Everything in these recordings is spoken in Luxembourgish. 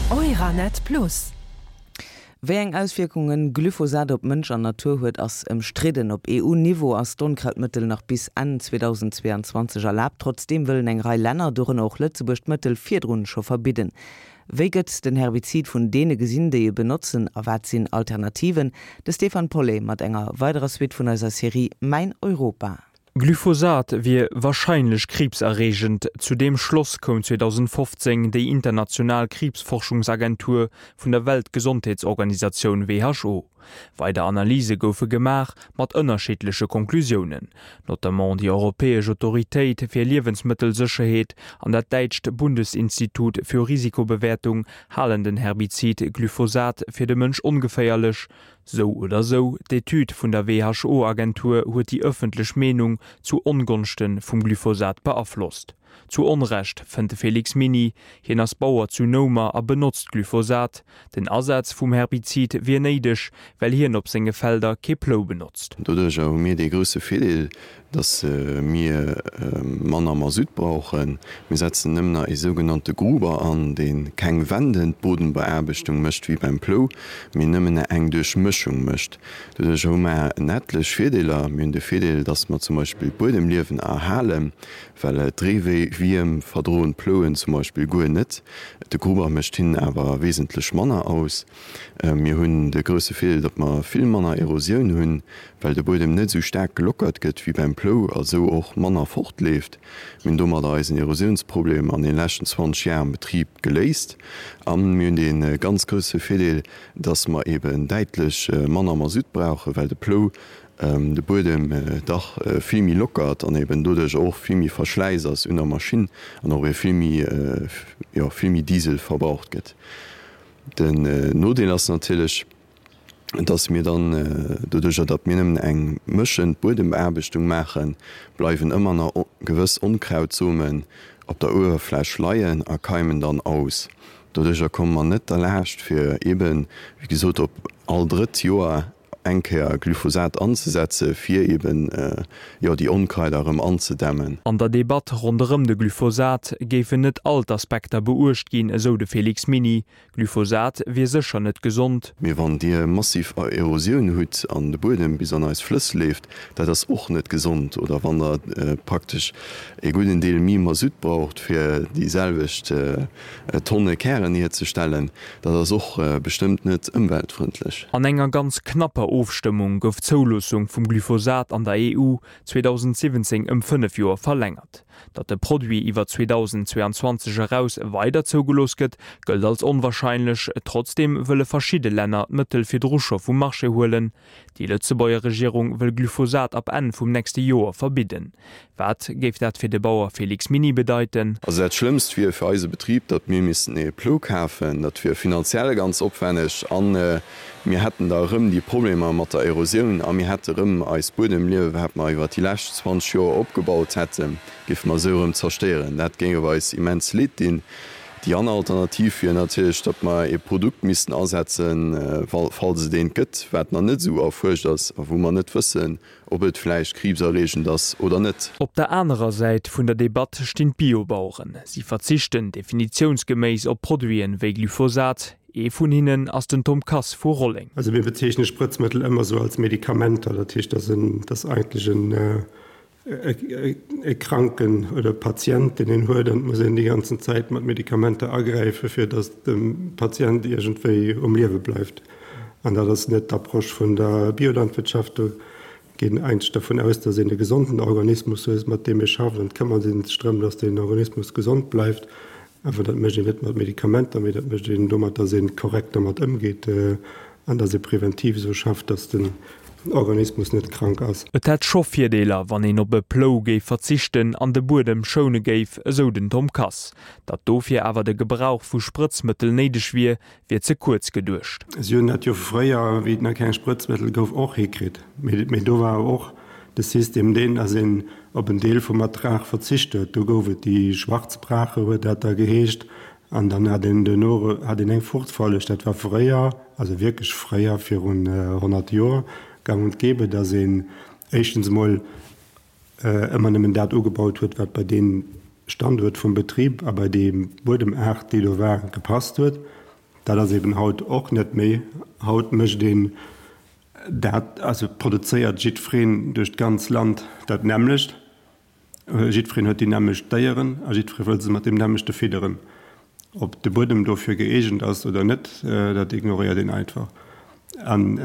Euranet Plus. Wéi eng Auswierkungen Glyphosat op Mënsch an Natur huet, ass ëmstridden. Op EU-Niveau ass d'Onkrautmëttel nach bis Enn 2022 erlaabt. Trotzdeem wëllen eng Rei Länner, dorënner och Lëtzebuerg, d'Mëttel virdrun scho verbidden. Wéi gëtt den Herbizid vun deene gesinn, déi e benotzen a wat sinn Alternativen? De Stéphane Paulet mat enger weiderer Suite vun eiser Serie Mäin Europa. Glyphosat wier warscheinlech kriibserreegend, zu deem Schloss koum 2015 déi international Kriibsforschungsagentur vun der Weltgesondheetsorganisatioun who. Weider Analyse goufe gemaach, mat ënnerschiddleche Konklusiounen. Notamment déi europäesch Autoritéit fir Liewensmëttelsécherheet an dat däitscht Bundesinstitut für Risikobewertung halen den Herbizid Glyphosat fir de Mënsch ongeféierlech. Sou oder sou, d'Etüd vun der WHO-Agentur huet déi ëffentlech Meenung zu Ongonschte vum Glyphosat beaflosst. Zu Onrecht, fënnt de Félix Miny. Hien ass Bauer zu Noumer a benotzt Glyphosat. Den Asaz vum Herbizid wier néideg, well hien op senge Felder kee Plou benotzt. Doduercher hu mir dee grousse Virdeel, datt mir manner Masutt brauchen. Mir setzen nëmmen nach ee sougenannte Gruber an, dee keng wendend Bodenbeaarbechtung mécht wéi beim Plou, mee nëmmen eng Duerchmëschung mécht. Doduercher hu mer en ettlech Virdeeler. Mir hunn de Virdeel, datt mer zum Beispill d'Buedemliewen erhalen. Well d'Reewierm verdroen d'Plouen zum Beispill guer net. De Gruber mécht hinnen awer wesentlech manner aus. Mir hunn de grousse Virdeel, datt mer vill manner Erosioun hunn, well de Buedem net esou staark gelockert gëtt wéi beim Plou a sou och manner fortleeft. Mir hunn domadder eisen Erosiounsproblem an den leschten 20 Jar am Betrib geléist. A mir hunn dee ganz grousse Virdeel, datt mer eben däitlech manner Masutt brauchen, well de Plou de Buedem dach vill méi lockert an eben doduerch och vill méi Verschläiss ass un der Maschinn an och vill méi, jo, vill méi Diesel verbraucht gëtt. Den Nodeel ass natierlech, dass mir dann doduercher, datt mir nëmmen eng mëschend Buedembeaarbechtung maachen, bleiwen ëmmer nach gewëss Onkrautsomen op der Uewerfläch leien a keimen dann aus. Doduercher komme mer net derlaascht fir eben, wéi gesot, op all drëtt Joer eng Kéier Glyphosat anzesetze fir eben, jo, déi Onkraider erëm anzedämmen. An der Debatt ronderëm de Glyphosat géifen net all d'Aspekter beuecht ginn, esou de Félix Miny. Glyphosat wier sécher net gesond. Mee wann Dir massiv Erosioun hutt an de Buedem bis an eis Flëss leeft, dat ass och net gesond. Oder wann Der praktesch e gudden Deel méi Masutt braucht, fir déi selwecht Tonne Kären hierzestellen, dat ass och bestëmmt net ëmweltfrëndlech. An enger ganz knapper Ofstëmmung gouf d'Zouloossung vum Glyphosat an der EU 2017 ëm 5 Joer verlängert. Datt de Produit iwwer 2022 eraus weider zougelooss gëtt, gëllt als onwarscheinlech. Trotzdeem wëlle verschidde Länner d'Mëttel virdru scho vum Marché huelen. Déi Lëtzebuerger Regierung wëll Glyphosat ab Enn vum nächste Joer verbidden. Wat géif dat fir de Bauer Félix Miny bedeiten? Also dat Schlëmmst wier fir eise Betrib, datt mir missten ee Plou kafen. Dat wier finanziell ganz opwänneg a mir hätten da erëm déi Problemer mat der Erosioun a mir hätte erëm eist Buedemliewe, wat mer iwwer déi lescht 20 Joer opgebaut hätten, géife mer esou erëm zerstéieren. Dat géing eis immens leed dinn. Déi aner Alternativ wier natierlech, datt mer ee Produkt missten asetzen, falls et eent gëtt, wat nach net esou erfuerscht ass a wou mer net wëssen, ob et vläicht kriibserreegend ass oder net. Op der anerer Säit vun der Debatt stinn d'Biobaueren. Si verzichten definitiounsgeméiss op Produiten wéi Glyphosat. Ee vun hinnen ass den Tom Kass vu Rolleng. Also mir bezeechne Sprëtzmëttel ëmmer esou als Medikamenter. Dat heescht, dat ass eigentlech en e Kranken oder Patient, deen een huet, an et muss een déi ganzen Zäit mat Medikamenter agräifen, fir datt de Patient iergendwéi um Liewe bleift. An dat ass net d'Approche vun der Biolandwirtschaft. Do geet een eigentlech dervun aus, datt een e gesonden Organismus huet, mat deem ee schafft, an et këmmert ee sech drëm, datt deen Organismus gesond bleift. Awer dat mécht een net mat Medikamenter, mee dat mécht een domat, datt ee korrekt domat ëmgeet an datt ee preventiv esou schafft, datt den Organismus net krank ass. Et hätt scho Virdeeler, wann een op e Plou géif verzichten an de Buedem schoune géif, esou den Tom Kass. Datt dofir awer de Gebrauch vu Sprëtzmëttel néideg wier, wier ze kuerz geduecht. Si hunn dat jo fréier, wéi et nach keng Sprëtzmëttel gouf, och hikritt. Mee do war och de System deen, datt een op en Deel vum Ertrag verzicht huet. Do gouf et déi Schwarzbrache, huet dat da geheescht, an dann hat een duerno hat een eng Fruchtfolleg. Dat war fréier, also wierklech fréier, virun 100 Joer, gang und gäbe, datt een éischtens emol ëmmer nëmmen dat ugebaut huet, wat bei dee Standuert vum Betrib a bei déi Buedemaart, déi do war, gepasst huet. Dat ass eben haut och net méi. Haut mécht een dat, also produzéiert jiddwereen duerch d'ganz Land dat nämmlecht. Jiddwereen huet déi nämmlecht Déieren a jiddweree wëll se mat deem nämmlechte fidderen. Ob de Buedem dofir gëeegent ass oder net, dat ignoréiert een einfach. An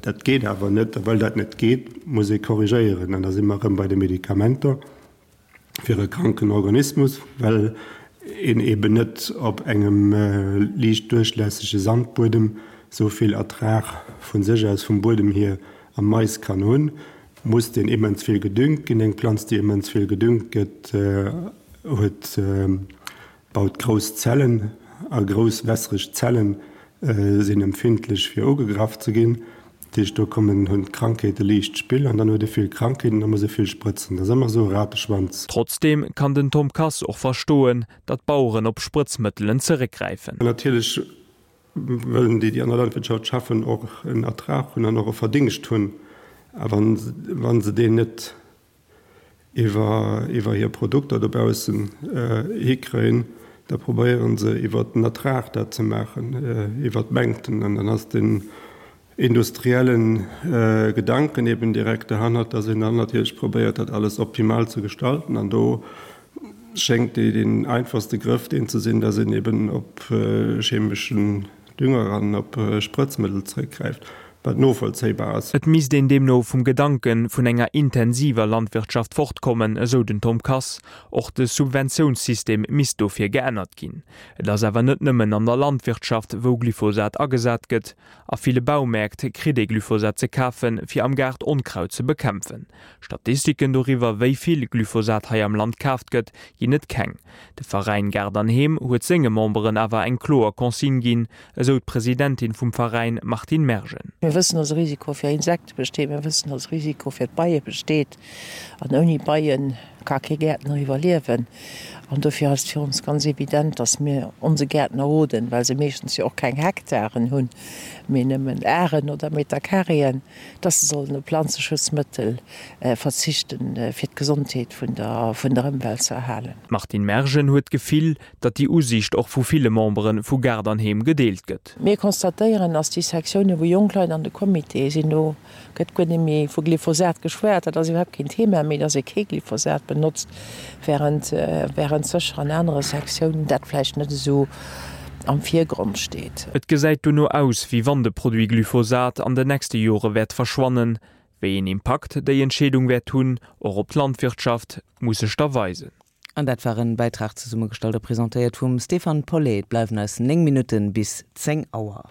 dat geet awer net. A well dat net geet, muss ee korrigéieren. An da si mer erëm bei de Medikamenter fir e kranken Organismus, well een eben net op engem liicht duerchlässege Sandbuedem esou vill Ertrag vu sech aus vum Buedem hier am Mais kann hunn. Muss deen immens vill gedüngt ginn. Eng Planz, déi immens vill gedüngt gëtt, huet, baut grouss Zellen a grouss wässereg Zellen sinn empfindlech fir ugegraff ze ginn. Dat heescht, do kommen, hunn d'Krankheete liicht Spill an dann huet e vill Krankheeten, da muss e vill sprëtzen. Dat ass ëmmer esou e Rateschwanz. Trotzdeem kann den Tom Kass och verstoen, datt d'Baueren op Sprëtzmëttelen zeréckgräifen. Natierlech wëllen déi, déi an der Landwirtschaft schaffen, och en Ertrag hunn an och e Verdingscht hunn. A wa se deen net iwwer hir Produkter dobaussen hikréien, da probéiere se iwwer den Ertrag dat ze maachen, iwwer d'Mengten. An dann ass den industrielle Gedanken eben direkt derhannert, dass een dann natierlech probéiert, dat alles optimal ze gestalten. An do schéngt deen einfachste Grëff deen ze sinn, dass een eben op chemeschen Dünger an op Sprëtzmëttel zréckgräift, wat novollzéibar ass. Et misst een deemno vum Gedanke vun enger intensiver Landwirtschaft fortkommen, esou den Tom Kass. Och de Subventiounssystem misst dofir geännert ginn. Et ass awer net nëmmen an der Landwirtschaft, wou Glyphosat agesat gëtt. A ville Baumäert kritt ee Glyphosat ze kafen, fir am Gaart Onkraut ze bekämpfen. Statistiken doriwwer, wéi vill Glyphosat hei am Land kaaft gëtt, ginn et keng. De Veräin Gaart an Heem huet senge Memberen awer eng kloer Consigne ginn, esou d'Presidentin vum Veräin Martine Mergen. Mir wëssen, dass e Risiko fir Insekte besteet, mir wëssen, dass e Risiko fir d'Beie besteet. An ouni Beie ka kee Gäertner iwwerliewen. An dofir ass et fir ons ganz evident, dass mir onse Gäertner roden, well se meeschtens jo och keng Hektaren hunn, mee nëmmen Aren oder Metercarréen, dass se sollen op Planzeschutzmëttel verzichten, fir d'Gesondheet vun der vun der Ëmwelt ze erhalen. D'Martine Mergen huet d'Gefill, datt déi Usiicht och vu ville Membere vu Gaart an Heem gedeelt gëtt. Mir constatéieren, dass déi Sektiounen, wou jonk Leit an de Comitéë sinn, do gëtt guer net méi vu Glyphosat geschwat, dat ass iwwerhaapt keen Thema méi, dass ee kee Glyphosat benotzt, während während sécher an anere Sektiounen dat vläicht net esou am Virgrond steet. Et gesäit dono aus, wéi wann de Produit Glyphosat an den nächste Jore wäert verschwannen. Wéi een Impakt déi Entscheedung wäert hunn, och op d'Landwirtschaft, muss sech da weisen. An dat war en Bäitrag zesummegestallt a presentéiert vum Stéphane Paulet. Et bleiwen eis 9 Minutten bis 10 Auer.